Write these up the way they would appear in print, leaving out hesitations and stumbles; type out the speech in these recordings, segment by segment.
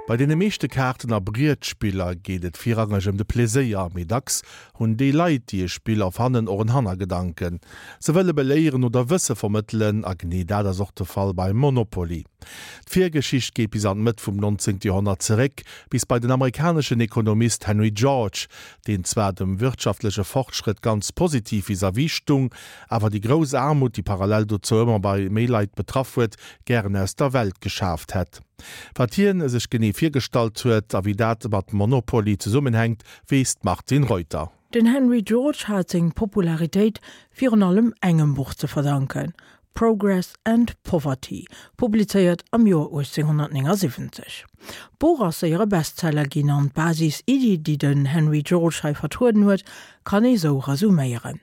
Bei deene meeschte Kaarten a Brietspiller geet et virrangeg ëm de Pleséier, mee dacks hunn déi Leit, déi e Spill erfannen, och en Hannergedanken. Se wëlle beléieren oder Wësse vermëttelen, a genee dat ass och de Fall beim Monopoly. D'Virgeschicht geet bis an d'Mëtt vum 19. Joerhonnert zeréck, bis bei den amerikaneschen Ekonomist Henry George, deen zwar dem wirtschaftleche Fortschrëtt ganz positiv vis-à-vis stung, awer déi grouss Aarmut, déi parallel dozou ëmmer bei méi Leit betraff huet, gären aus der Welt geschaaft hätt. Wat hien sech genee virgestallt huet a wéi dat mat Monopoly zesummenhänkt, weess d'Martine Reuter. Den Henry George hat seng Popularitéit virun allem engem Buch ze verdanken, Progress and Poverty, publizéiert am Joer 1879. D'Buch ass séier e Bestseller ginn an d'Basis-Iddi, déi den Henry George hei vertrueden huet, kann ee sou resuméieren,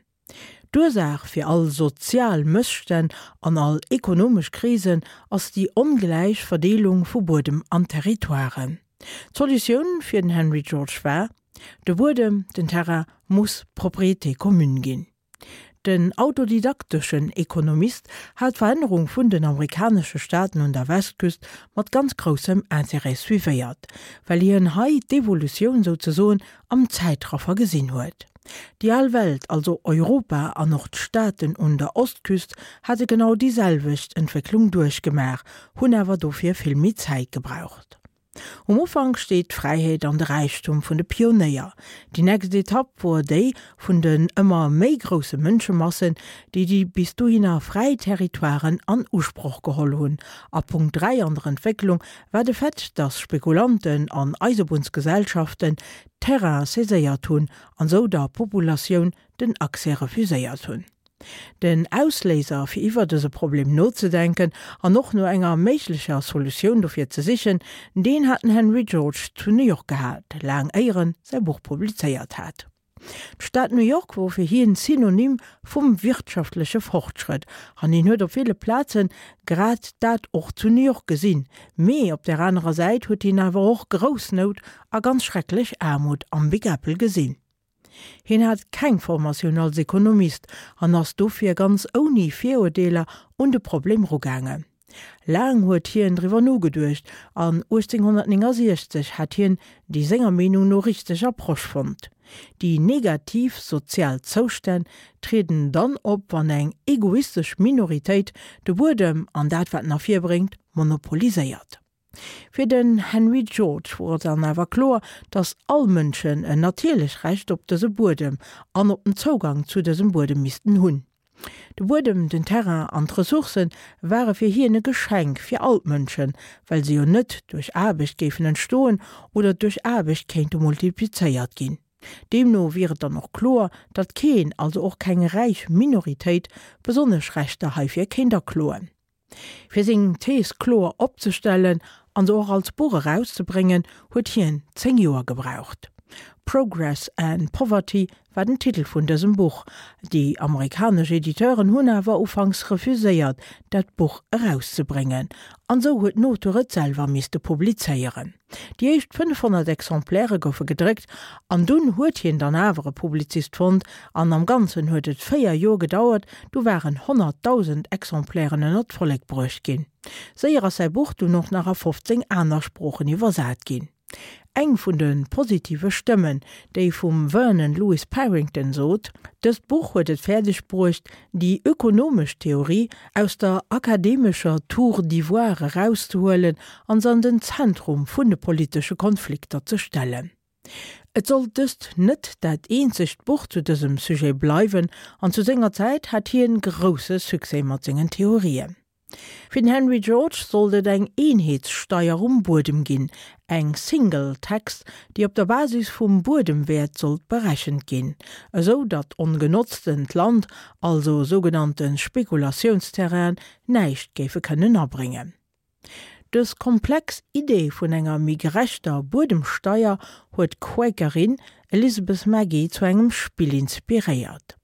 D'Ursaach fir all sozial Mësstänn an all ekonomesch Krisen ass déi ongläich Verdeelung vu Buedem an Territoiren. D'Solutioun fir den Henry George war, De Buedem, den Terrain, muss Propriété commune ginn. Den autodidakteschen Ekonomist hat d'Verännerung vun den amerikanesche Staaten un der Westküst mat ganz groussem Intérêt suivéiert, well hien hei d'Evolutioun souzesoen am Zäitraffer gesinn huet. Déi al Welt, also Europa an och d'Staaten un der Ostküst, hate genau déi selwecht Entwécklung duerchgemaach, hunn awer dofir vill méi Zäit gebraucht. Um Ufank steet d'Fräiheet an de Räichtum vun de Pionéier. Déi nächst Etapp wor déi vun den ëmmer méi grousse Mënschemassen, déi déi bis dohinner fräi Territoiren an Usproch geholl hunn. A Punkt 3 an der Entwécklung war de Fait, dass Spekulanten an Eisebunnsgesellschaften Terrain saiséiert hunn an sou der Populatioun den Accès refuséiert hunn. Den Ausléiser fir iwwer dëse Problem nozedenken an och no enger méiglecher Solutioun dofir ze sichen, deen hat den Henry George zu New York gehat, laang éier en säi Buch publizéiert hat. D'Stad New York wor fir hien Synonym vum wirtschaftleche Fortschrëtt an hien huet op ville Plazen grad dat och zu New York gesinn. Mee op där anerer Säit huet hien awer och grouss Nout a ganz schrecklech Aarmut am Big Apple gesinn. Hien hat keng Formatioun als Ekonomist an ass dofir ganz ouni Virurdeeler un de Problem rugaangen. Laang huet hien driwwer nogeduecht an 1869 hat hien déi senger Meenung no richteg Approche fonnt. Déi negativ sozial Zoustänn trieden dann op, wann eng egoistesch Minoritéit de Buedem an dat wat en ervirbréngt monopoliséiert. Fir den Henry George wor et dann awer kloer, datt all Mënschen en natierlech Recht op dëse Buedem an op den Zougang zu dësem Buedem missten hunn. De Buedem, den Terrain an d'Ressourcë ware fir hien e Geschenk fir all d'Mënschen, well se jo net duerch Aarbecht géifen entstoen oder duerch Aarbecht kéinte multiplizéiert ginn. Deemno wier et dann och kloer, datt keen, also och keng räich Minoritéit, besonnesch Rechter heifir kéint akloen. Fir seng Thees kloer opzestellen an se och als Buch erauszebréngen, huet hien 10 Joer gebraucht. Progress and Poverty war den Titel vun dësem Buch. Déi amerikanesch Editeuren hunn awer ufanks refuséiert, dat Buch erauszebréngen, an esou huet den Auteur et selwer misste publizéieren. Déi éischt 500 Exemplaire goufe gedréckt an dunn huet hien dann awer e Publizist fonnt an am Ganzen huet et 4 Joer gedauert, du waren 100.000 Exemplairen ënner d'Vollek bruecht ginn. Séier ass säi Buch dunn och nach a 15 aner Sproochen iwwersat ginn. Eng vun de positive Stëmmen, déi vum Vernon Lewis Parrington sot, Dëst Buch huet et fäerdeg bruecht, déi ökonomesch Theorie aus der akademescher Tour d'ivoire erauszehuelen an se an den Zentrum vun de politesche Konflikter ze stellen. Et sollt dëst net dat eenzegt Buch zu dësem Sujet bleiwen an zu senger Zäit hat hien grousse Succès mat sengen Theorien. Fir den Henry George sollt et eng Eenheetssteier um Buedem ginn, eng Single Tax, déi op der Basis vum Buedemwäert sollt berechent ginn, esou datt ongenotztent Land, also sougenannte Spekulatiounsterrainen, näischt géife kënnen abréngen. Dës komplex Idee vun enger méi gerechter Buedemsteier huet d'Quakerin Elizabeth Magie zu engem Spill inspiréiert.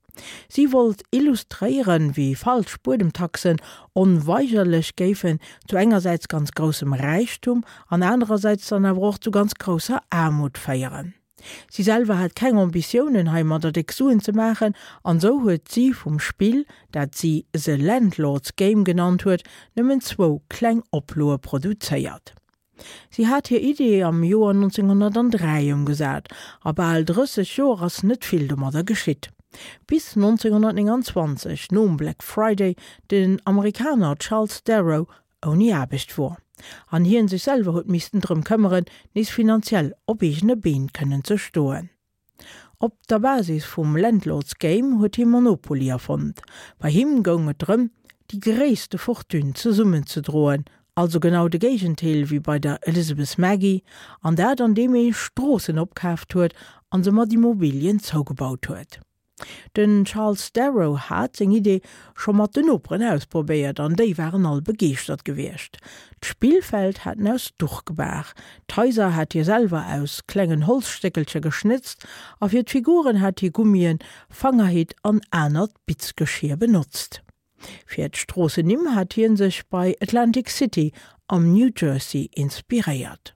Si wollt illustréieren, wéi falsch Buedemtaxen onweigerlech géifen zu engersäits ganz groussem Räichtum an anerersäits dann awer och zu ganz grousser Aarmut féieren. Si selwer hat keng Ambitiounen heimadder déck Suen ze maachen an sou huet si vum Spill, dat si The Landlord's Game genannt huet, nëmmen zwou kleng Oploe produzéiert. Si hat hir Idee am Joer 1903 ëmgesat, a bal 30 Joer ass net vill domadder geschitt. Bis 1929, nom Black Friday, den Amerikaner Charles Darrow ouni Aarbecht wor, an hien sech selwer huet missten drëm këmmeren, nees finanziell op eegene Been kënnen ze stoen. Op der Basis vum Landlord's Game huet hie Monopoly erfonnt. Bei him goung et drëm, déi gréisste Fortune zesummenzedroen, also genau de Géigentéel wéi bei der Elizabeth Magie, an dat an deem ee Stroossen opkaaft huet an se mat Immobilien zougebaut huet. Den Charles Darrow hat seng Idee scho mat den Noperen ausprobéiert an déi waren all begeeschtert gewiescht. D'Spillfeld hat en aus Duch gebaach, d'Haiser hat hie selwer aus klengen Holzstéckelcher geschnëtzt a fir d'Figuren hat hie Gummien, Fangerhitt an anert Bitzgeschier benotzt. Fir d'Stroossennimm hat hie sech bei Atlantic City am New Jersey inspiréiert.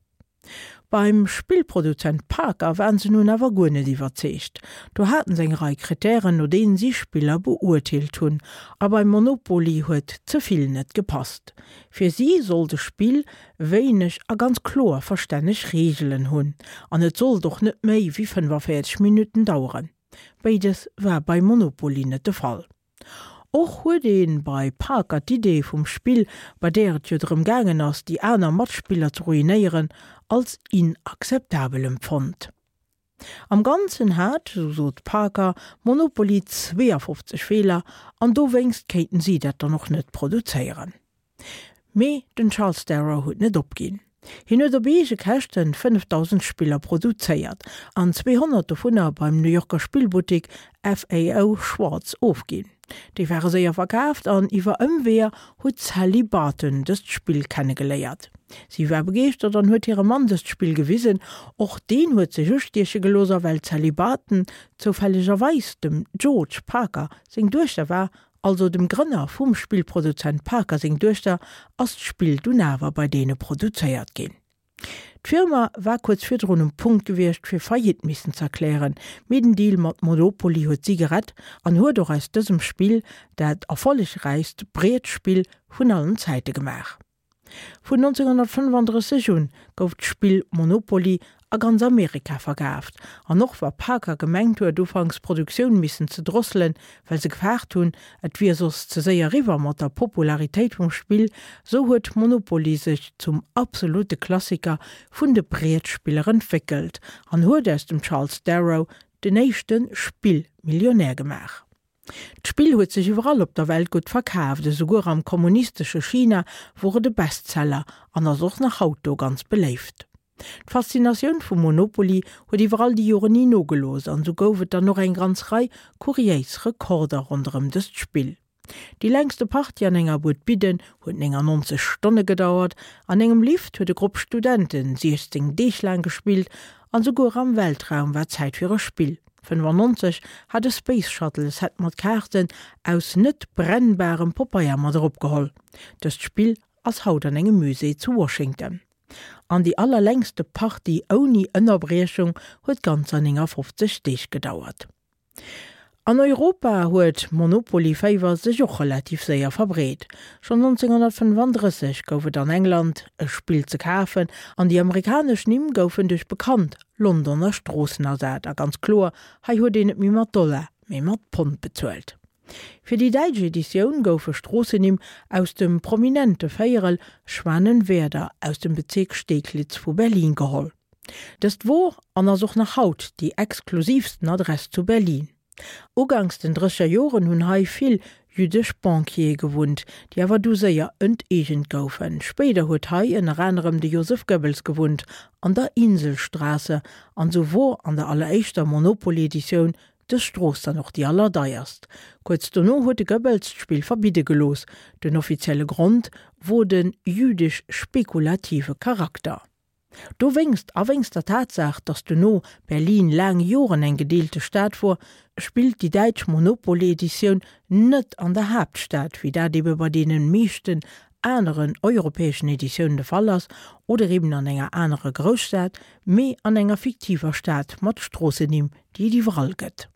Beim Spillproduzent Parker waren se nun awer guer net iwwerzeegt. Do haten se eng Rei Kritären, no deenen si Spiller beurteelt hunn, a beim Monopoly huet ze vill net gepasst. Fir si sollt e Spill wéineg a ganz kloer verstänneg Reegelen hunn, an et sollt och net méi wéi 45 Minutten daueren. Béides war bei Monopoly net de Fall. Och huet ee bei Parker d'Idee vum Spill, bei där et jo drëm gaangen ass, déi aner Matspiller ze ruinéieren, als inakzeptabel empfonnt. Am Ganzen hat, sou sot Parker, Monopoly 52 Feeler an dowéinst kéinten si dat dann och net produzéieren. Mee den Charles Darrow huet net opginn. Hien huet op eege Käschten 5.000 Spiller produzéiert an 200 dovunner beim New Yorker Spillbuttik FAO Schwarz ofginn. Déi ware séier verkaaft an iwwer Ëmweeër huet d'Sally Barton dëst Spill kennegeléiert. Si war begeeschtert an huet hirem Mann dëst Spill gewisen. Och deen huet sech ustieche gelooss a well d'Sally Barton zoufällegerweis dem George Parker seng Duechter war, also dem Grënner vum Spillproduzent Parker seng Duechter, ass d'Spill dunn awer bei deene produzéiert ginn. D'Firma war kuerz virdrun um Punkt gewiescht fir Faillite missen z'erklären, mee den Deal mat Monopoly huet si gerett an huet och aus dësem Spill dat erfollegräichst Brietspill vun allen Zäite gemaach. Vun 1935 un gouf d'Spill Monopoly a ganz Amerika verkaaft, an och wa Parker gemengt huet ufanks d'Produktioun missen ze drosselen, well se gefaart hunn et wier soss ze séier eriwwer mat der Popularitéit vum Spill, sou huet Monopoly sech zum absolute Klassiker vun de Brietspiller entwéckelt an huet aus dem Charles Darrow den éischte Spillmillionär gemaach. D'Spill huet sech iwwerall op der Welt gutt verkaaft, esouguer am kommunistesche China wor et e Bestseller an ass och nach haut do ganz beléift. D'Faszinatioun vum Monopoly huet iwwer all déi Joren ni nogelooss an esou gouf et dann och eng ganz Rei kuriéis Rekorder ronderëm dëst Spill. Déi längste Partie an enger Buet Bidden huet 99 Stonne gedauert, an engem Lift huet e Grupp Studenten 16 Deeg laang gespillt an esouguer am Weltraum war Zäit fir e Spill. 95 hat e Space Shuttle e Set mat Kaarten aus net brennbarem Popeier mat eropgeholl. Dëst Spill ass haut an engem Musée zu Washington. An déi allerlängste Partie ouni Ënnerbriechung huet ganzer 59 Deeg gedauert. An Europa huet Monopoly-Féiwer sech och relativ séier verbreet. Schonn 1935 gouf et an England e Spill ze kafen an déi amerikanesch Nimm goufen duerch bekannt Londoner Stroossen ersat. A ganz kloer, hei huet een net méi mat Dollar, mee mat Pond bezuelt. Fir déi däitsch Editioun goufe Stroossennimm aus dem prominente Véierel Schwanenwerder aus dem Bezierk Steglitz vu Berlin geholl. Dëst wor an ass och nach haut déi exklusivsten Adress zu Berlin. Uganks den drësseger Joren hunn hei vill jüddesch Banquiere gewunnt, déi awer du séier enteegent goufen. Spéider huet hei ënner anerem de Joseph Goebbels gewunnt, an der Inselstraße, an sou wor an der alleréischter Monopoly-Editioun dës Strooss dann och déi allerdeierst. Kuerz dono huet de Goebbels d'Spill verbidde gelooss, den offizielle Grond wor de jüdesch-spekulative Charakter. Dowéngst, a wéngst der Tatsaach, datt dono Berlin laang Joren eng gedeelte Stad wor, spillt déi däitsch Monopoly-Editioun net an der Haaptstad, wéi dat ebe bei deene meeschten aneren europäeschen Editiounen de Fall ass, oder eben an enger anerer Grousstad, mee an enger fiktiver Stad mat Stroossennimm, déi et iwwerall gëtt.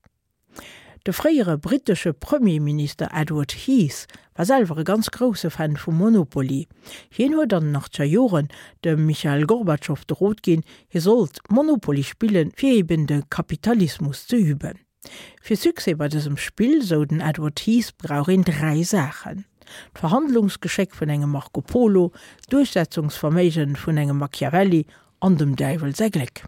De fréiere brittesche Premierminister Edward Heath war selwer e ganz grousse Fan vu Monopoly. Hien huet an den achtzeger Joren dem Michael Gorbatschow de Rot ginn, hie sollt Monopoly spillen, fir eben de Kapitalismus ze üben. Fir Succès bei dësem Spill, sou den Edward Heath, brauch een 3 Saachen, d'Verhandlungsgeschéck vun engem Marco Polo, d'Duerchsetzungsverméigen vun engem Machiavelli an dem Däiwel säi Gléck.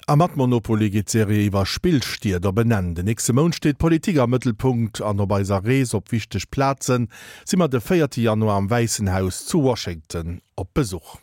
A mat Monopoly geet d'Serie iwwer Spillstied op en Enn. Den nächste Mount steet d'Politik am Mëttelpunkt an op eiser Rees op wichteg Plazen si mer de véierte Januar am Wäissen Haus zu Washington op Besuch.